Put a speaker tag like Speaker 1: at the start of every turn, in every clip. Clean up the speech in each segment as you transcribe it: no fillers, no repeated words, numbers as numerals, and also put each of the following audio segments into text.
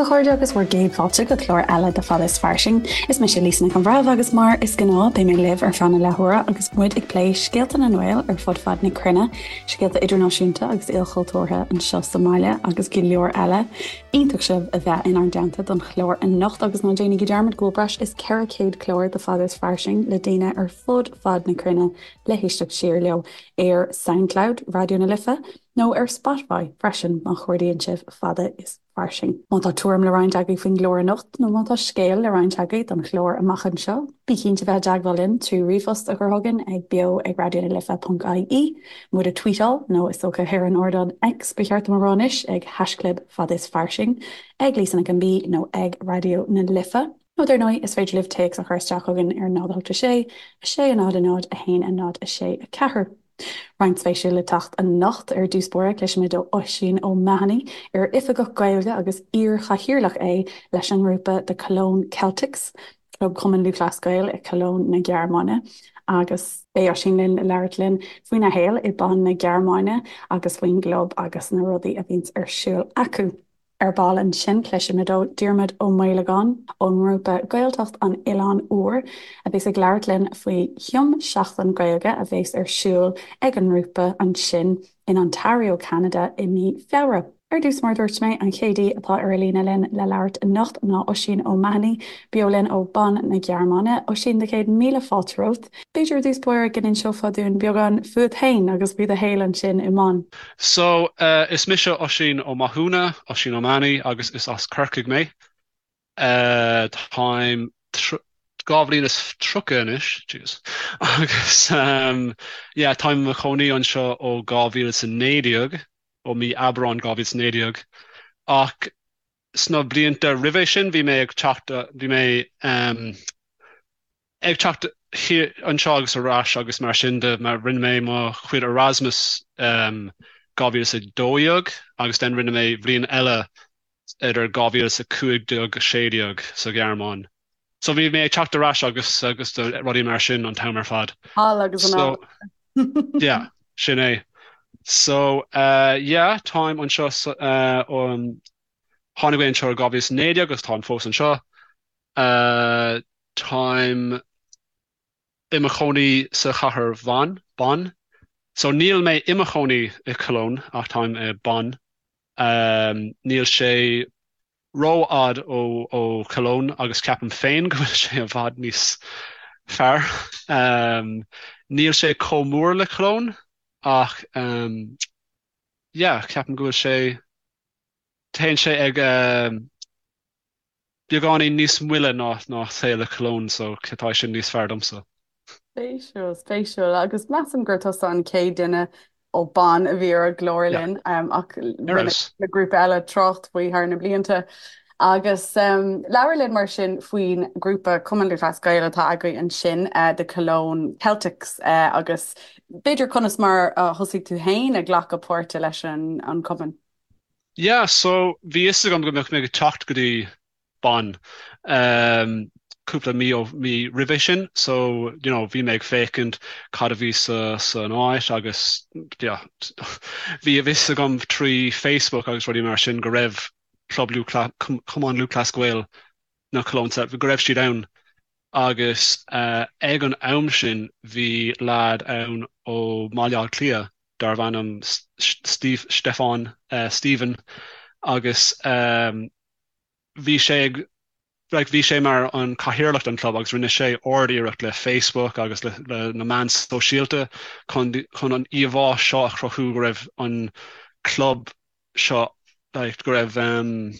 Speaker 1: a chairde agus bhur gcéad fáilte go clár eile de Fada is Fairsing. Is mise Lisa Nic an Bhreithimh agus mar is gnáth beidh mé libh ar feadh na leathuaire agus muid ag plé scéalta na nGael ar fud fad na cruinne, scéalta idirnáisiúnta agus ilchultúrtha anseo sa mbaile agus go leor eile. Iontach sibh a bheith inár dteannta don chlár anocht agus ná déanaigí dearmad go bhfuil breis is 400 clár de Fada is Fairsing le daoine ar fud fad na cruinne le héisteacht siar leo ar Soundcloud Raidió na Life nó ar Spotify freisin má chuardaíonn sibh Fada is Fairsing. Má tá tuairim le roinnt agaibh faoin gclár anocht nó má tá scéal le roinnt agaibh don chlár amach anseo, bí cinnte bheith i dteagmháil linn trí ríomhphost a chur chugainn ag beo ag raidionalife.ie, muid a tweetáil nó is dócha ar an ardán X ba cheart dom a rá anois ag haischlib fada is fairsing, ag Lisa Nic an B nó ag Raidió na Life. Nó dar ndóigh, is féidir libh téacs a chur isteach chugainn ar 0 8 6 6 0 0 1 0 6 4. Roinnt spéisiúil le teacht anocht. Ar dtús báire, cloisfimid ó Oisín O'Mahony, ar Oifigeach Gaeilge agus iar-chathaoirleach é leis an ngrúpa The Cologne Celtics, club Chumann Lúthchleas Gael i Cologne na Gearmáine, agus beidh Oisín linn le labhairt linn faoina shaol i Bonn na Gearmáine agus faoin gclub agus na rudaí a bhíonns ar siúl acu. Ar ball ansin, cloisfimid ó Diarmuid Ó Maolagáin ón ngrúpa Gaeltacht an Oileáin Úir, a bheas ag labhairt linn faoi thiom-seachtain Gaeilge a bheas ar siúl ag an ngrúpa ansin in Ontario, Ceanada i mí Feabhra. Ar dtús, mar a dúirt mé, an chéad aoi atá ar an líne linn le labhairt anocht ná Oisín O'Mahony, beo linn ó Bonn na Gearmáine. Oisín, do chéad míle fáilte romhat. B'fhéidir i dtús báire go n-inseofá dúinn beagán fúat féin agus faoi do shaol ansin i mBonn.
Speaker 2: So, is mise Oisín Ó Mathúna, Oisín O'Mahony, agus is as Corcaigh mé. Táim 32 bhliain anois, jeez, agus yeah, táim i mo chónaí anseo ó 2019, ó mí Aibreán 2019, ach sna blianta roimhe sin bhí mé ag teacht, bhí mé ag teacht anseo agus ar ais agus mar sin de, mar rinne mé mo chuid Erasmus 2012 agus then rinne mé bhliain eile idir 2015 16 sa Ghearmáin. So bhí mé ag teacht ar ais agus agus rudaí mar sin an t-am ar fad.
Speaker 1: Thall agus anall.
Speaker 2: So yeah, sin é. So uh, yeah, táim anseo uh, um, tháinig mé anseo i 2019 agus táim fós anseo. Uh, Táim i mo chónaí sa chathair Bhonn, Bonn. So níl mé i mo chónaí i Cologne ach táim i Bonn. Níl sé rófhad ó ó Cologne agus ceapaim féin go bhfuil sé i bhfad níos fearr. Níl sé chomh mór le Cologne ach yeah, ceapaim go bhfuil sé, téann sé ag beagáinín níos moille ná ná saol i Cologne so tá sin níos fearr domsa.
Speaker 1: Spéisiúil, spéisiúil. Agus measaim gur tusa an chéad duine ó Bonn a bhí ar an gclár linn ach rinne le grúpa eile trácht faoi thar na blianta. Agus labhair linn mar sin faoin grúpa Cumann Lúthchleas Gael atá agaibh ansin, The Cologne Celtics, agus b'fhéidir conas mar a thosaigh tú féin ag glacadh páirte leis an cumann?
Speaker 2: Yeah, so bhí fhios agam go mbeadh mé ag teacht go dtí Bonn um, cúpla mí ó mí roimhe sin, so you know, bhí mé ag féachaint cad a bhí sa san áit agus yeah, bhí a fhios agam trí Facebook agus rudaí mar sin go raibh Club Lúthchleas, Cumann Lúthchleas Gael na Cologne, go raibh siad ann agus uh, ag an am sin bhí leaid ann ó Bhaile Átha Cliath darbh ainm Steve, Stefan, Stephen agus bhí sé ag like bhí sé mar an cathaoirleach den club agus rinne sé ard-iarracht le Facebook agus le, le na meáin sóisialta chun, chun an íomhá seo a chruthú go raibh an club seo like go raibh um,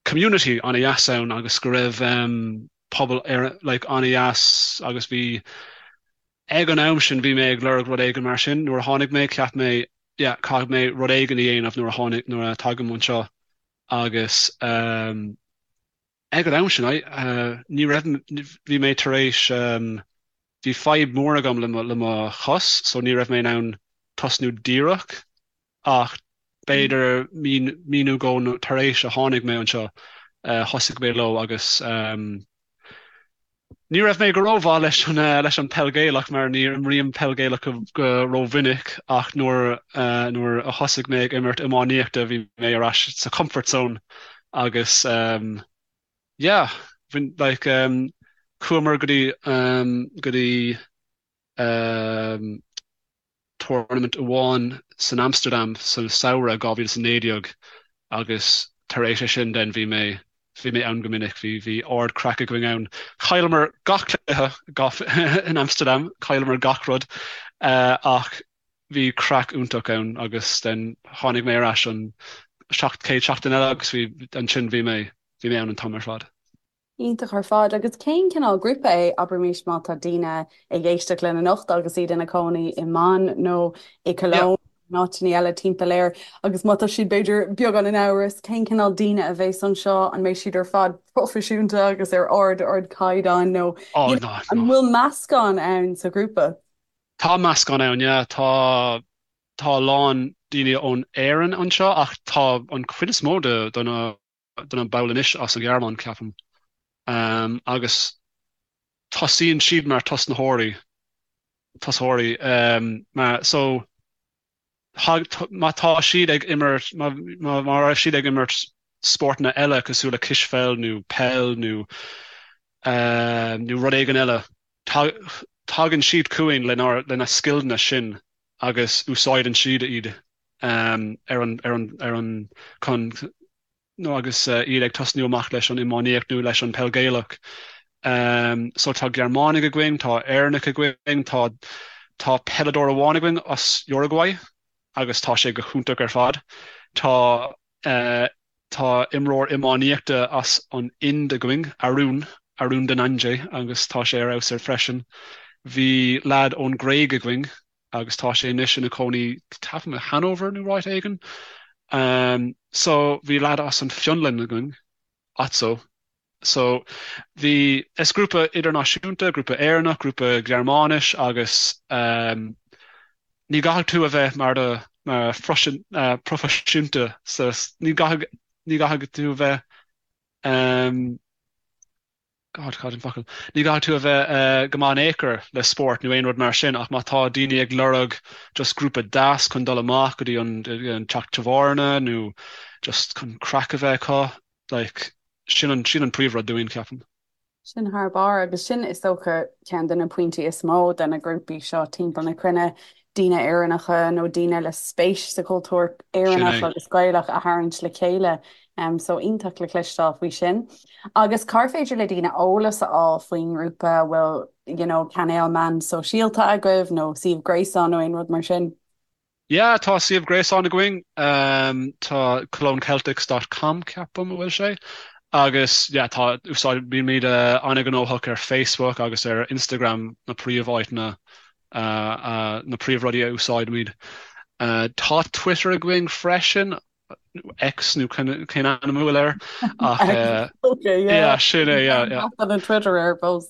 Speaker 2: community an-dheas ann agus go raibh um, pobal ar, like an-dheas agus bhí Ag an am sin bhí mé ag lorg rud éigin mar sin. Nuair a tháinig mé, cheap mé, yeah, caithfidh mé rud éigin a dhéanamh nuair a tháinig, nuair a tagaim anseo agus ehm ag an am sin, I, eh, ní raibh, bhí mé tar éis, ehm, bhí fadhb mór agam le mo, le mo chos so ní raibh mé in ann tosnú díreach ach b'fhéidir mí, mí nó dhó tar éis a tháinig mé anseo, thosaigh mé leo agus ní raibh mé go rómhaith leis an, leis an peil Gaelach mar ní imrím peil Gaelach go rómhinic ach nuair, nuair a thosaigh mé ag imirt iománaíochta bhí mé ar ais sa comfort zone. Agus um, yeah, bhain, like, um, chuamar go dtí um, go dtí um, tournament amháin san Amsterdam sa samhradh 2019 agus tar éis é sin then bhí mé bhí mé ann go minic, bhí bhí ard craic againn ann. Chailleamar gach cluiche gach in Amsterdam, chailleamar gach rud ach bhí craic iontach ann agus then tháinig mé ar ais an chéad seachtain eile agus bhí ansin bhí mé bhí mé ann an t-am ar fad.
Speaker 1: Iontach ar fad. Agus cén cineál grúpa é, abraimis má tá daoine ag éisteacht linn anocht agus iad ina cónaí i mBonn nó i Cologne nó áiteanna eile timpeall air agus má tá siad b'fhéidir beagán in amhras cén cineál daoine a bheas anseo, an mbeidh siad ar fad proifisiúnta agus ar ard ardchaighdeán nó
Speaker 2: Oh no,
Speaker 1: an
Speaker 2: no.
Speaker 1: bhfuil meascán ann sa ghrúpa?
Speaker 2: Tá meascán ann, yeah. Tá tá a lán daoine ón Éirinn anseo ach tá an chuid is mó de de na de na baill anois as an Ghearmáin, ceapaim. Agus tosaíonn siad mar tosnaitheoirí, tosaitheoirí, mar, so, má tá siad ag imirt, má, má raibh siad ag imirt spórtanna eile cosúil le cispheil nó peil nó, nó rud éigin eile, tagann siad chugainn lenár, lena scileanna sin agus úsáideann siad iad ar an, ar an, ar an, chun, nó agus iad ag tosnú amach leis an iománaíocht nó leis an peil Gaelach. So tá Gearmánaigh againn, tá Éireannaigh againn, tá, tá peileadóir amháin againn as Uruguay agus tá sé go hiontach ar fad. Tá, tá imreoir iománaíochta as an Ind againn, Arun, Arun Dhananjay agus tá sé ar fheabhas ar freisin. Bhí leaid ón Gréig againn agus tá sé anois ina chónaí ceapaim i Hanover nó áit éigin. So bhí leaid as an Fionlainn againn, Atso. So bhí, is grúpa idirnáisiúnta, grúpa Éireannach, grúpa Gearmáinis agus ní gcaithfidh tú a bheith mar do mar proifisiúnta sa ní gcaithfidh ní gcaithfidh tú a bheith God, cad an focal? Ní gcaithfidh tú a bheith go maith in aon chor le spórt nó aon rud mar sin ach má tá daoine ag lorg just grúpa deas chun dul amach go dtí an teach tábhairne nó just chun craic a bheith acu, like, sin an, sin an príomhrud dúinn, ceapaim.
Speaker 1: Sin thar barr agus sin is dócha ceann de na pointí is mó de na grúpaí seo timpeall na cruinne, daoine Éireannacha nó daoine le spéis sa chultúr Éireannach agus Gaelach a tharraingt le chéile. So iontach le cloisteáil faoi sin. Agus cár féidir le daoine eolas a fháil faoin ngrúpa? An bhfuil you know, cainéal meán sóisialta agaibh nó suíomh gréasáin nó aon rud mar sin?
Speaker 2: Yeah, tá suíomh gréasáin againn, tá cologneceltics dot com ceapaim a bhfuil sé, agus yeah tá úsáid, bímid an-ghnóthach ar Facebook agus ar Instagram na príomháiteanna, na príomhrudaí a úsáidimid. Tá Twitter againn freisin X nó cén ainm a bhfuil air ach yeah sin é yeah yeah.
Speaker 1: Tá Twitter air fós.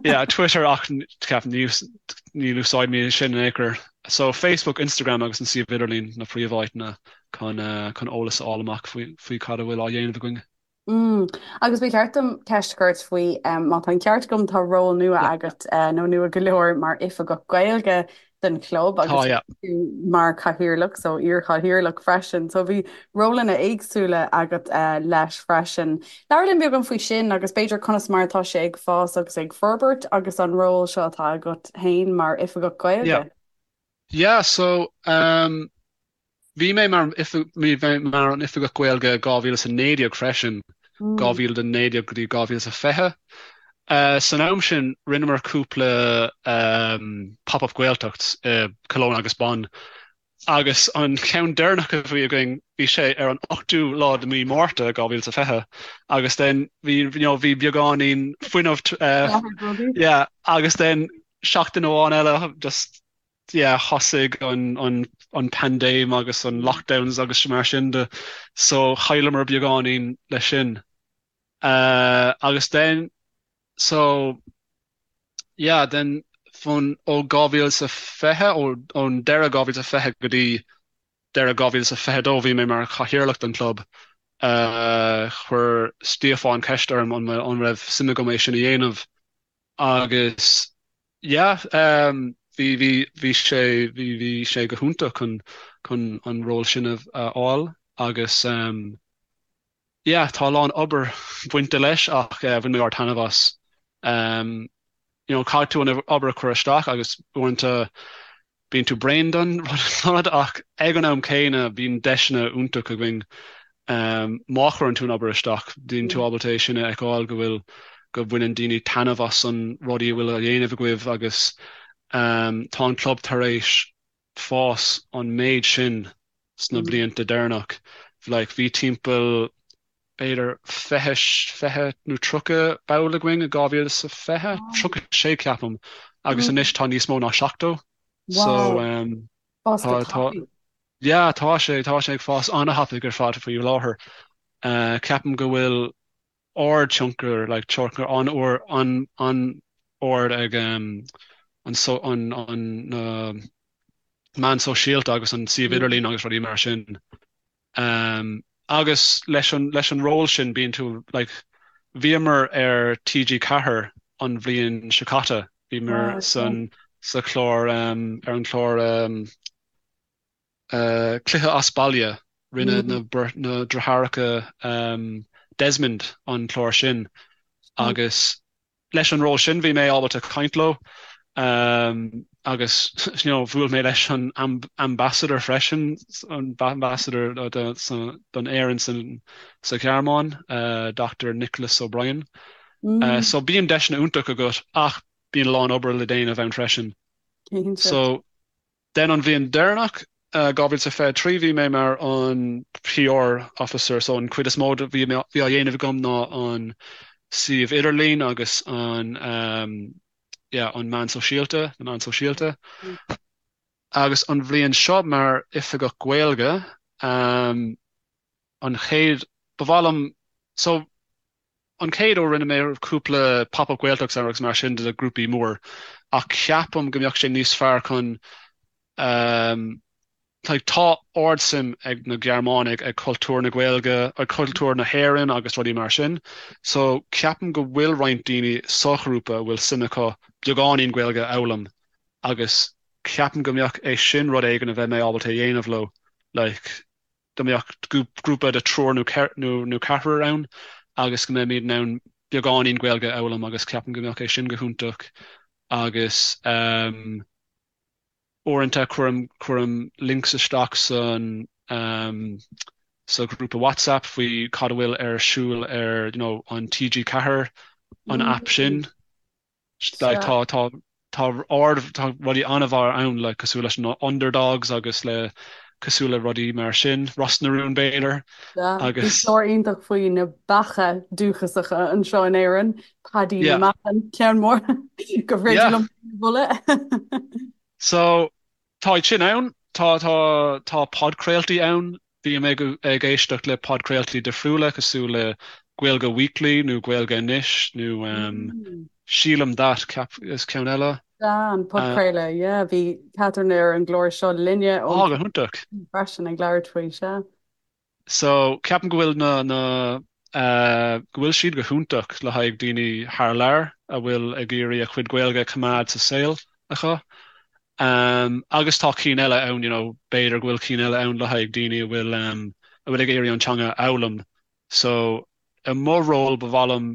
Speaker 2: Yeah Twitter ach ceapaim ní úsáidimid sin in aon chor. So Facebook, Instagram agus an suíomh idirlín na príomháiteanna chun chun eolas a fháil amach faoi faoi cad a bhfuil á dhéanamh againn.
Speaker 1: Mm. Agus ba cheart dom ceist a chur ort faoi, má tá an ceart agam, tá ról nua agat, nó nua go leor, mar Oifigeach Gaeilge don chlub agus
Speaker 2: Tá, yeah.
Speaker 1: tú mar chathaoirleach, so iar-chathaoirleach freisin. So bhí rólanna éagsúla agat leis freisin. Labhair linn beagán faoi sin agus b'fhéidir conas mar atá sé ag fás agus ag forbairt agus an ról seo atá agat féin mar Oifigeach
Speaker 2: Yeah.
Speaker 1: Gaeilge.
Speaker 2: Yeah, so um, Bhí mé mar bhí mé mar an Oifigeach Gaeilge 2019 freisin, 2019 go dtí 2020. San am sin, rinneamar cúpla Pop-Up Gaeltacht i Cologne agus Bonn agus an ceann deireanach a bhí againn, bhí sé ar an 8ú lá de mhí Márta 2020 agus then bhí you know bhí beagáinín fuinneamh yeah agus then seachtain amháin eile just yeah thosaigh an an an paindéim agus an lockdowns agus mar sin de so chailleamar beagáinín leis sin. Agus then so yeah then fón ó 2020 ón deireadh 2020 go dtí deireadh 2022 bhí mé mar chathaoirleach den chlub. Chuir Stiofán ceist orm an an raibh suim agam é sin a dhéanamh Agus yeah bhí bhí bhí sé bhí bhí sé go hiontach chun chun an ról sin a fháil agus. Yeah, tá a lán obair bainte leis ach bhain mé ard-taitneamh as. Um, you know, caithfidh tú an obair a chur isteach agus uaireanta bíonn tú bréan den rud ach ag an am céanna bíonn deiseanna iontach againn um, má chuireann tú an obair isteach, bíonn tú ábalta é sin a fheiceáil go bhfuil go bhaineann daoine taitneamh as an rudaí a bhfuil á dhéanamh agaibh agus um, tá an club tar éis fás an méid sin sna blianta deireanach. Like bhí timpeall b'fhéidir 20, 20 nó 30 ball againn i 2020, 36 ceapaim, agus anois tá níos mó ná 70. So um,
Speaker 1: Fás go
Speaker 2: tá, tá,
Speaker 1: tapaidh.
Speaker 2: yeah, tá sé, tá sé ag fás an-thapaidh ar fad faoi láthair. Uh, ceapaim go bhfuil ard-tionchar, like tionchar an-ard, an-ard ag an so, an, an, na meáin sóisialta agus an suíomh idirlín agus rudaí mar sin. Agus leis an, leis an ról sin bíonn tú, like, bhíomar ar TG4 an bhliain seo caite, bhíomar san, sa chlár, ar an chlár, Cluiche as Baile, rinne na deartháireacha Desmond an clár sin agus leis an ról sin bhí mé ábalta caint leo agus you know bhuail mé leis an ambassador freisin, an ambassador don Éirinn sa Ghearmáin, Dr Nicholas O'Brien. So bíonn deiseanna iontach agat ach bíonn a lán obair le déanamh ann freisin. So Then an bhliain deireanach, 2023, bhí mé mar an PR officer, so an chuid is mó de bhí á dhéanamh agam ná an suíomh idirlín agus an yeah an meán sóisialta, na meáin sóisialta. Agus an bhliain seo mar oifigeach Gaeilge, an chéad, ba mhaith liom, so An chéad uair rinne mé cúpla Pop Up Gaeltacht agus mar sin de grúpaí mór ach ceapaim go mbeadh sé níos fearr chun like tá ardsuim ag na Gearmánaigh ag cultúr na Gaeilge, ag cultúr na hÉireann agus rudaí mar sin so ceapaim go bhfuil roinnt daoine sa ghrúpa a bhfuil suim acu beagáinín Gaeilge a fhoghlaim agus ceapaim go mbeadh é sin rud éigin a bheidh mé ábalta a dhéanamh leo like go mbeadh grúpa de triúr nó ceathrar ann agus go mbeimid in ann beagáinín Gaeilge a fhoghlaim agus ceapaim go mbeadh é sin go hiontach agus uaireanta cuirim cuirim links isteach san sa ghrúpa WhatsApp faoi cad a bhfuil ar siúl ar you know an TG4 an app sin. Like tá tá tá ard tá rudaí an-mhaith ann like cosúil leis na Underdogs agus le cosúil le rudaí mar sin, Ros na Rún b'fhéidir
Speaker 1: Bhí agus clár iontach faoi na beacha dúchasacha anseo in Éirinn, Paddy na
Speaker 2: yeah
Speaker 1: mBeach, ceann mór gur féidir
Speaker 2: yeah.
Speaker 1: liom a mholadh.
Speaker 2: So Tá iad sin ann. Tá, tá, tá podchraoltaí ann. Bím ag, ag éisteacht le podchraoltaí difriúla cosúil le Gaeilge Weekly nó Gaeilge Anois nó um, Sílim That, ceap, is ceann eile.
Speaker 1: Sea, an podchraoladh, yeah. Bhí Catherine ar an gclár seo linne
Speaker 2: Á,
Speaker 1: ón
Speaker 2: go hiontach.
Speaker 1: freisin ag labhairt faoi, sea.
Speaker 2: So, ceapaim go bhfuil na, na, eh, go bhfuil siad go hiontach le haghaidh daoine thar lear a bhfuil ag iarraidh a chuid Gaeilge a choimeád sa saol acu. Um, agus tá cinn eile ann, you know, b'fhéidir go bhfuil cinn eile ann le haghaidh daoine a bhfuil, um, a bhfuil ag iarraidh an teanga a fhoghlaim. So, i mo ról ba mhaith liom,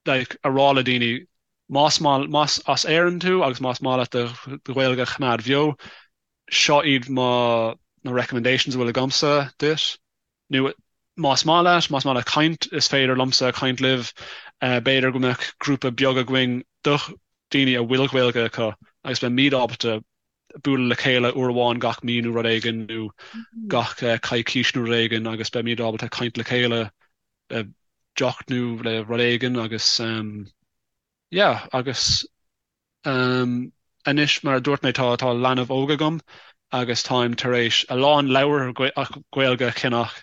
Speaker 2: like, a rá le daoine, más maith, más as Éirinn tú agus más maith leat do, do Ghaeilge a choimeád bheo, seo iad mo, na recommendations a bhfuil agamsa duit. Nó más maith leat, más maith leat caint, is féidir liomsa caint libh. B'fhéidir go mbeadh grúpa beag againn do dhaoine a bhfuil Gaeilge acu agus beimid ábalta bualadh le chéile uair amháin gach mí nó rud éigin nó gach coicís nó rud éigin agus beimid ábalta caint le chéile le deoch nó le rud éigin agus yeah agus Anois, mar a dúirt mé, tá tá leanbh óg agam agus táim tar éis a lán leabhar Gaeilge a cheannach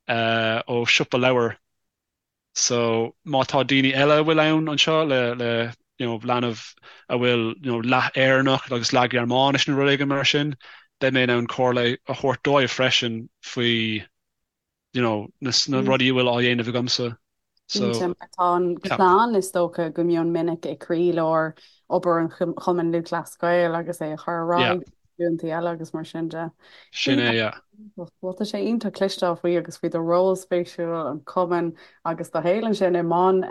Speaker 2: ó siopa leabhar. So, má tá daoine eile a bhfuil ann anseo le le you know leanbh a bhfuil you know leath Éireannach agus leath Ghearmáinis nó rud éigin mar sin, beidh mé in ann comhairle a thabhairt dóibh freisin faoi you know, na rudaí a bhfuil á dhéanamh agamsa.
Speaker 1: So, Cinnte, mar tá an chlann is dócha go mion minic i gcroílár obair an Chumainn Lúthchleas Gael agus é a chur ar aghaidh. Glúntaí eile agus mar sin de.
Speaker 2: Sin é, yeah.
Speaker 1: Bhuel, tá sé iontach cloisteáil faoi agus faoi do ról spéisiúil, an cumann agus do shaol ansin i mBonn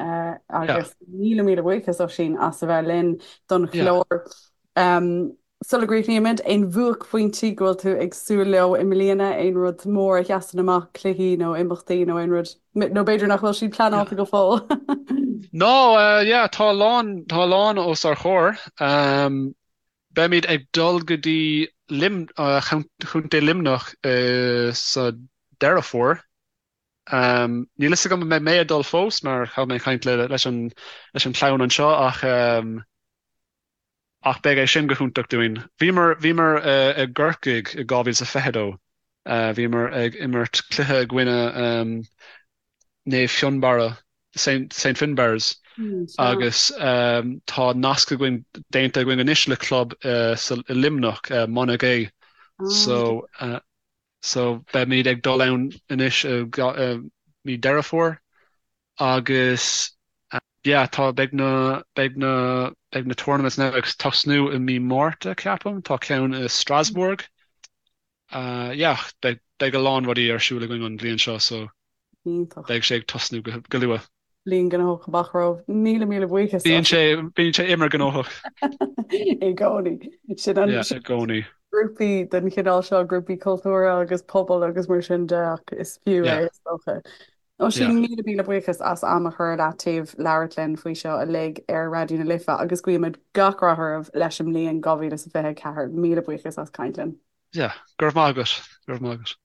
Speaker 1: agus míle míle buíochas Oisín as a bheith linn don chlár. Sula gcríochnaímid, aon bhuaicphointí go bhfuil tú ag súil leo i mbliana, aon rud mór a sheasann amach, cluichí nó imeachtaí nó aon rud, nó b'fhéidir nach bhfuil siad pleanáilte go fóill?
Speaker 2: No, yeah, tá a lán, tá a lán os ár chomhair. Beimid ag dul go dtí Lim, Chontae Luimneach sa Deireadh Fómhair. Níl fhios agam an mbeidh mé ag dul fós mar caithfidh mé caint leis an leis an chlann anseo ach ach beidh é sin go hiontach dúinn. Bhíomar bhíomar i gCorcaigh i 2022. Bhíomar ag imirt cluiche i gcoinne Naomh Fionnbarra, Saint Finbarr's, agus tá nasc againn, déanta againn anois le club i Luimneach, Monagea. So, so beimid ag dul ann anois i mí Deireadh Fómhair agus yeah, tá, beidh na, beidh na, beidh na tournaments now ag tosnú i mí Márta, ceapaim, tá ceann i Strasbourg. Yeah, beidh a lán rudaí ar siúl againn an bhliain seo so
Speaker 1: Iontach.
Speaker 2: beidh sé ag tosnú go luath.
Speaker 1: Bliain gnóthach amach romhaibh. Míle míle buíochas
Speaker 2: Bíonn sé, bíonn sé imir gnóthach.
Speaker 1: I gcónaí. Sin an,
Speaker 2: Yeah, i gcónaí.
Speaker 1: grúpaí den chineál seo, grúpaí cultúrtha agus pobail agus mar sin de ach is fiú é is dócha. Oisín, míle míle buíochas as am a chur ar leataobh labhairt linn faoi seo uilig ar Raidió na Life agus guímid gach rath oraibh leis an mbliain 2024. Míle buíochas as caint linn.
Speaker 2: Yeah, go raibh maith agat, go raibh maith agat.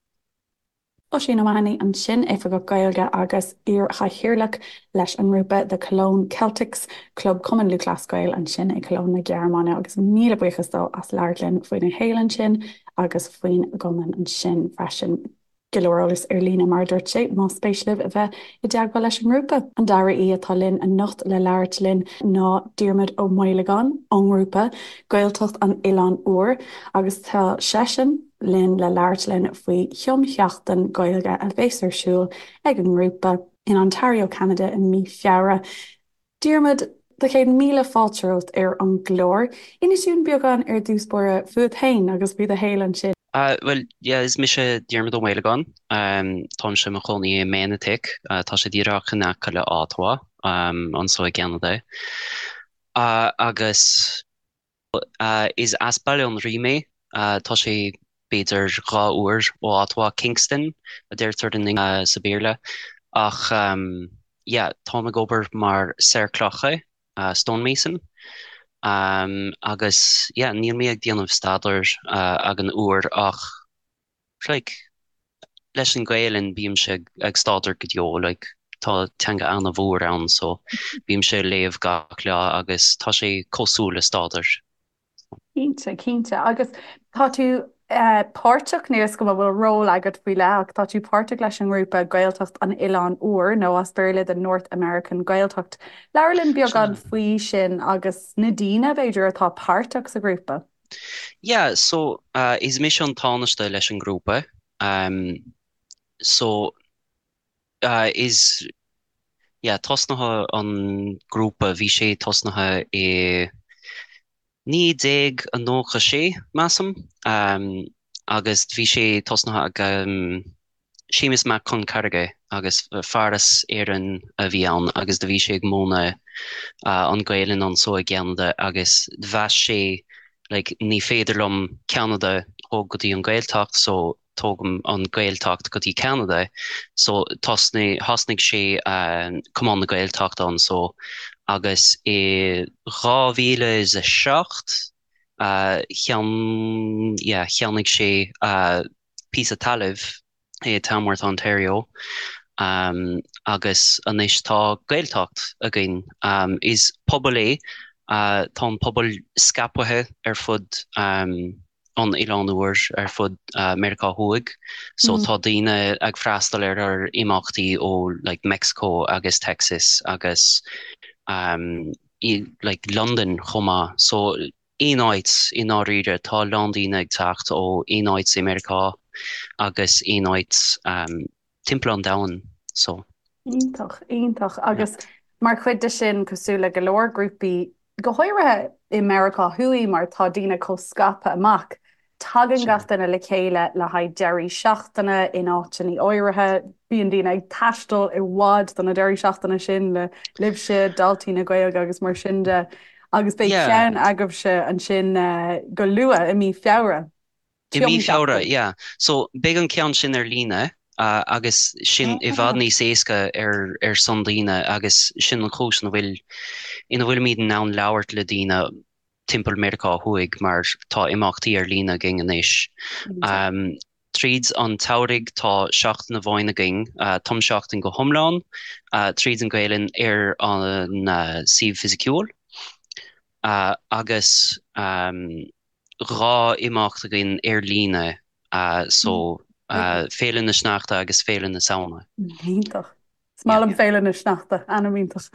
Speaker 1: Oisín O'Mahony ansin, Oifigeach Gaeilge agus iar-chathaoirleach leis an ngrúpa The Cologne Celtics, Club Cumann Lúthchleas Gael ansin i Cologne na Gearmáine agus míle buíochas dó as labhairt linn faoina shaol ansin agus faoin gcumann ansin freisin. Go leor eolas ar líne, mar a dúirt sé, más spéis libh a bheith i dteagmháil leis an ngrúpa. An dara aoi atá linn anocht le labhairt linn ná Diarmuid Ó Maolagáin ón ngrúpa Gaeltacht an Oileáin Úir agus tá seisean linn le labhairt linn faoi thumsheachtain Gaeilge a bheas ar siúl ag an ngrúpa in Ontario, Ceanada i mí Feabhra. Diarmuid, do chéad míle fáilte romhat ar an gclár. Inis dúinn beagán ar dtús báire fút féin agus faoi do shaol ansin.
Speaker 3: Bhuel, yeah, is mise Diarmuid Ó Maolagáin. Táimse i mo chónaí i Manotick. Tá sé díreach in aice le Ottawa, anso i gCeanada. Agus. Is as Baile an Rí mé. Tá sé b'fhéidir 2 uair ó Ottawa, Kingston a deirtear sa Bhéarla. Ach yeah, táim ag obair mar saor clocha, stonemason. Agus yeah, níl mé ag déanamh staidéir ag an uair ach like, leis an Gaelainn bímse ag staidéar go deo, like, tá teanga an-mhór ann so bímse ag léamh gach lá agus tá sé cosúil le staidéar.
Speaker 1: Cinnte, cinnte. Agus tá tú páirteach, níl 'fhios agam an bhfuil ról agat faoi leith ach tá tú páirteach leis an ngrúpa Gaeltacht an Oileáin Úir nó as Béarla The North American Gaeltacht. Labhair linn beagán faoi sin agus na daoine, b'fhéidir, atá páirteach sa ghrúpa.
Speaker 3: Yeah, so is mise an Tánaiste leis an ngrúpa. So is, yeah, tosnaithe an grúpa, bhí sé tosnaithe i 1996, measaim, agus bhí sé tosnaithe ag Séamus Mac Con Carraige agus fear as Éirinn a bhí ann agus do bhí sé ag múineadh an Gaelainn anso i gCeanada agus mheas sé like ní féidir liom Ceanada thóg go dtí an Gaeltacht so tógaim an Gaeltacht go dtí Ceanada so tosnaigh thosnaigh sé Cumann na Gaeltachta anso agus i 2007 cheann yeah cheannaigh sé píosa talaimh i Tamworth, Ontario agus anois tá Gaeltacht againn. Is pobal é, tá an pobal scaipthe ar fud an Oileáin Úir, ar fud Meiriceá Thuaidh, so tá daoine ag freastal ar ár imeachtaí ó like Mexico agus Texas agus like Londain chomh maith. So aon áit i ndáiríre, tá a lán daoine ag teacht ó aon áit i Meiriceá agus aon áit timpeall an domhain so.
Speaker 1: Iontach, iontach. Agus mar chuid de sin, cosúil le go leor grúpaí, go háirithe i Meiriceá Thuaidh mar tá daoine chomh scaipthe amach. Tagann gach duine le chéile le haghaidh deirí seachtaine in áiteanna áirithe. Bíonn daoine ag taisteal i bhfad do na deirí seachtaine sin le libhse, daltaí na Gaeilge agus mar sin de. Agus beidh ceann agaibhse ansin go luath i mí Feabhra.
Speaker 3: I mí Feabhra, yeah. So beidh an ceann sin ar líne agus sin i bhfad níos éasca ar ar son daoine agus sin an chúis ina bhfuil ina bhfuilimid in ann labhairt le daoine timpeall Meiriceá Thuaidh mar tá imeachtaí ar líne againn anois. Tríd an tsamhraidh tá seachtain amháin againn, tumsheachtain go hiomlán, tríd an Ghaelainn ar an suíomh fisiciúil agus 2 imeacht againn ar líne, so Féile na Sneachta agus Féile na Samhna.
Speaker 1: Iontach. Is maith liom Féile na Sneachta, ainm iontach.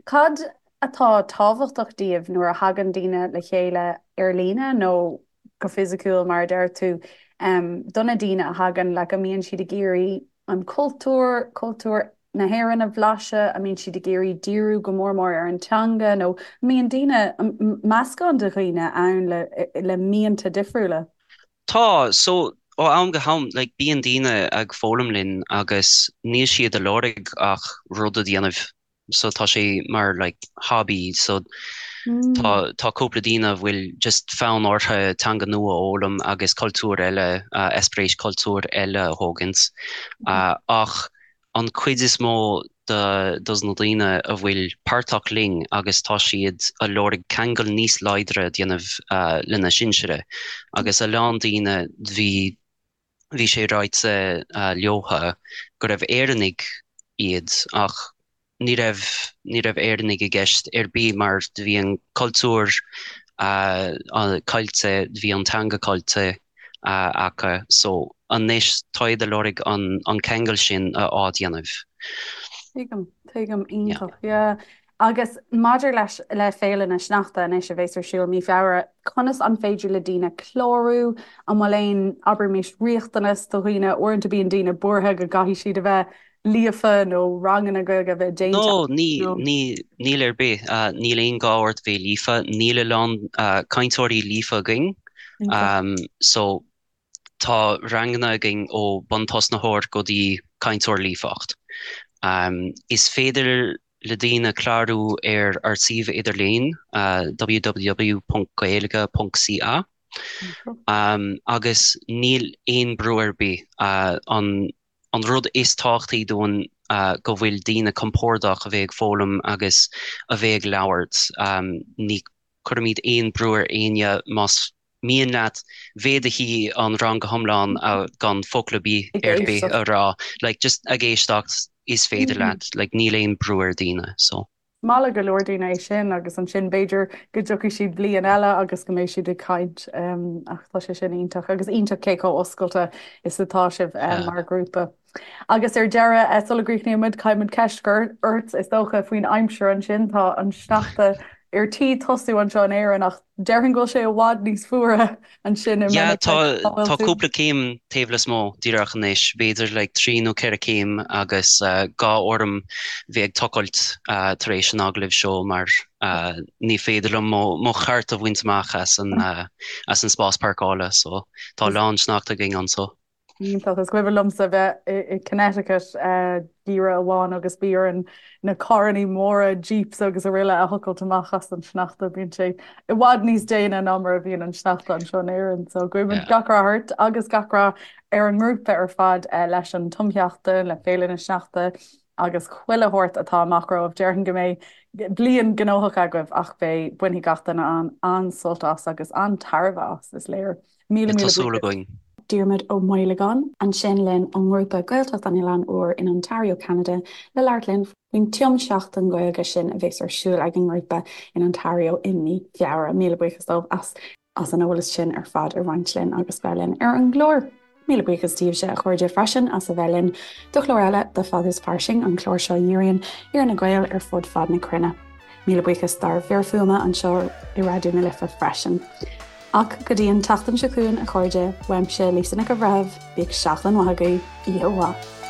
Speaker 1: Cad atá tábhachtach daoibh nuair a thagann daoine le chéile ar líne nó go fisiciúil mar a deir tú, do na daoine a thagann, like an mbíonn siad ag iarraidh an cultúr, cultúr na hÉireann a bhlaiseadh, an mbíonn siad ag iarraidh díriú go mór mór ar an teanga nó an mbíonn daoine, meascán de dhaoine ann le le mianta difriúla?
Speaker 3: Tá, so, ó am go ham, like, bíonn daoine ag foghlaim linn agus níl siad ag lorg ach rud a dhéanamh, so tá sé mar, like, hobby, so tá, tá cúpla daoine a bhfuil just fonn orthu teanga nua a fhoghlaim agus cultúr eile, eispéireas cultúr eile a thógaint, ach an cuid is mó de dos na daoine a bhfuil páirteach linn agus tá siad a lorg ceangal níos láidre a dhéanamh lena sinsire agus a lán daoine bhí bhí sé ráite leotha go raibh Éireannaigh iad ach ní raibh ní raibh Éireannaigh i gceist ar bith mar bhí an cultúr caillte bhí an teanga caillte acu so anois tá siad ag lorg an an ceangal sin a athdhéanamh.
Speaker 1: Tuigim, tuigim, iontach, yeah. Agus maidir leis le Féile na Sneachta anois a bheas ar siúl mí Feabhra, conas an féidir le daoine clárú? An bhfuil aon, abraimis, riachtanas do dhaoine? Uaireanta bíonn daoine buartha go gcaithfidh siad a bheith líofa nó ranganna Gaeilge a bheith déanta
Speaker 3: No, ní, ní, níl ar bith. Níl aon gá ort bheith líofa. Níl a lán cainteoirí líofa againn. So, tá ranganna againn ó buntosnaitheoir go dtí cainteoir líofacht. Is féidir le daoine clárú ar ár suíomh idirlín, www.gaeilge.ca, agus níl aon brú ar bith. An an rud is tábhachtaí dúinn go bhfuil daoine compordach a bheith ag foghlaim agus a bheith ag labhairt. Ní chuirimid aon brú ar éinne más mian leat bheith i do shuí an rang go hiomlán gan focal ar bith ar bith a rá, like just ag éisteacht is féidir leat, like níl aon brú ar daoine so.
Speaker 1: Maith le go leor daoine é sin agus ansin b'fhéidir go dtiocfaidh siad bliain eile agus go mbeidh siad ag caint ach tá sé sin iontach agus iontach cé chomh oscailte is atá sibh mar ghrúpa. Agus ar deireadh, sula gcríochnaíonn muid, caithfidh muid ceist a chur ort is dócha faoin aimsir ansin. Tá an sneachta ar tí tosú anseo in Éirinn ach déarfainn go bhfuil sé i bhfad níos fuaire ansin i
Speaker 3: Yeah, tá tá cúpla céim taobh lasmuigh díreach anois, b'fhéidir like 3 nó 4 céim agus gá orm bheith ag tochailt tar éis an agallaimh seo mar ní féidir liom mo mo chairt a bhaint amach as an as an spás páirceála so tá a lán sneachta againn anseo.
Speaker 1: Iontach. Is cuimhin liomsa bheith i Connecticut geimhreadh amháin agus bhí orainn na carrannaí móra, jeeps agus araile a thochailt amach as an sneachta. Bíonn sé i bhfad níos déine ná mar a bhíonn an sneachta anseo in Éirinn. So guímid gach rath ort agus gach rath ar an ngrúpa ar fad leis an tumsheachtain, le Féile na Sneachta agus chuile shórt atá amach romhaibh. Déarfainn go mbeidh bliain gnóthach agaibh ach beidh, bainfidh gach duine an-sult as agus an-tairbhe as, is léir. Míle
Speaker 3: míle Tá súil againn.
Speaker 1: Diarmuid Ó Maolagáin ansin linn ón ngrúpa Gaeltacht an Oileáin Úir in Ontario, Ceanada le labhairt linn faoin tumsheachtain Ghaeilge sin a bheas ar siúl ag an ngrúpa in Ontario i mí Feabhra. Míle buíochas dóibh as as an eolas sin ar fad a roinnt linn agus bheith linn ar an gclár. Míle buíochas daoibhse a chairde freisin as a bheith linn do chlár eile de Fada is Fairsing, an clár seo a dhíríonn ar na Gaeil ar fud fad na cruinne. Míle buíochas dár bhfir fuaime anseo i Raidió na Life freisin. Ach go dtí an tseachtain seo chugainn, a chairde, uaimse, Lisa Nic an Bhreithimh, bíodh seachtain mhaith agaibh, oíche mhaith.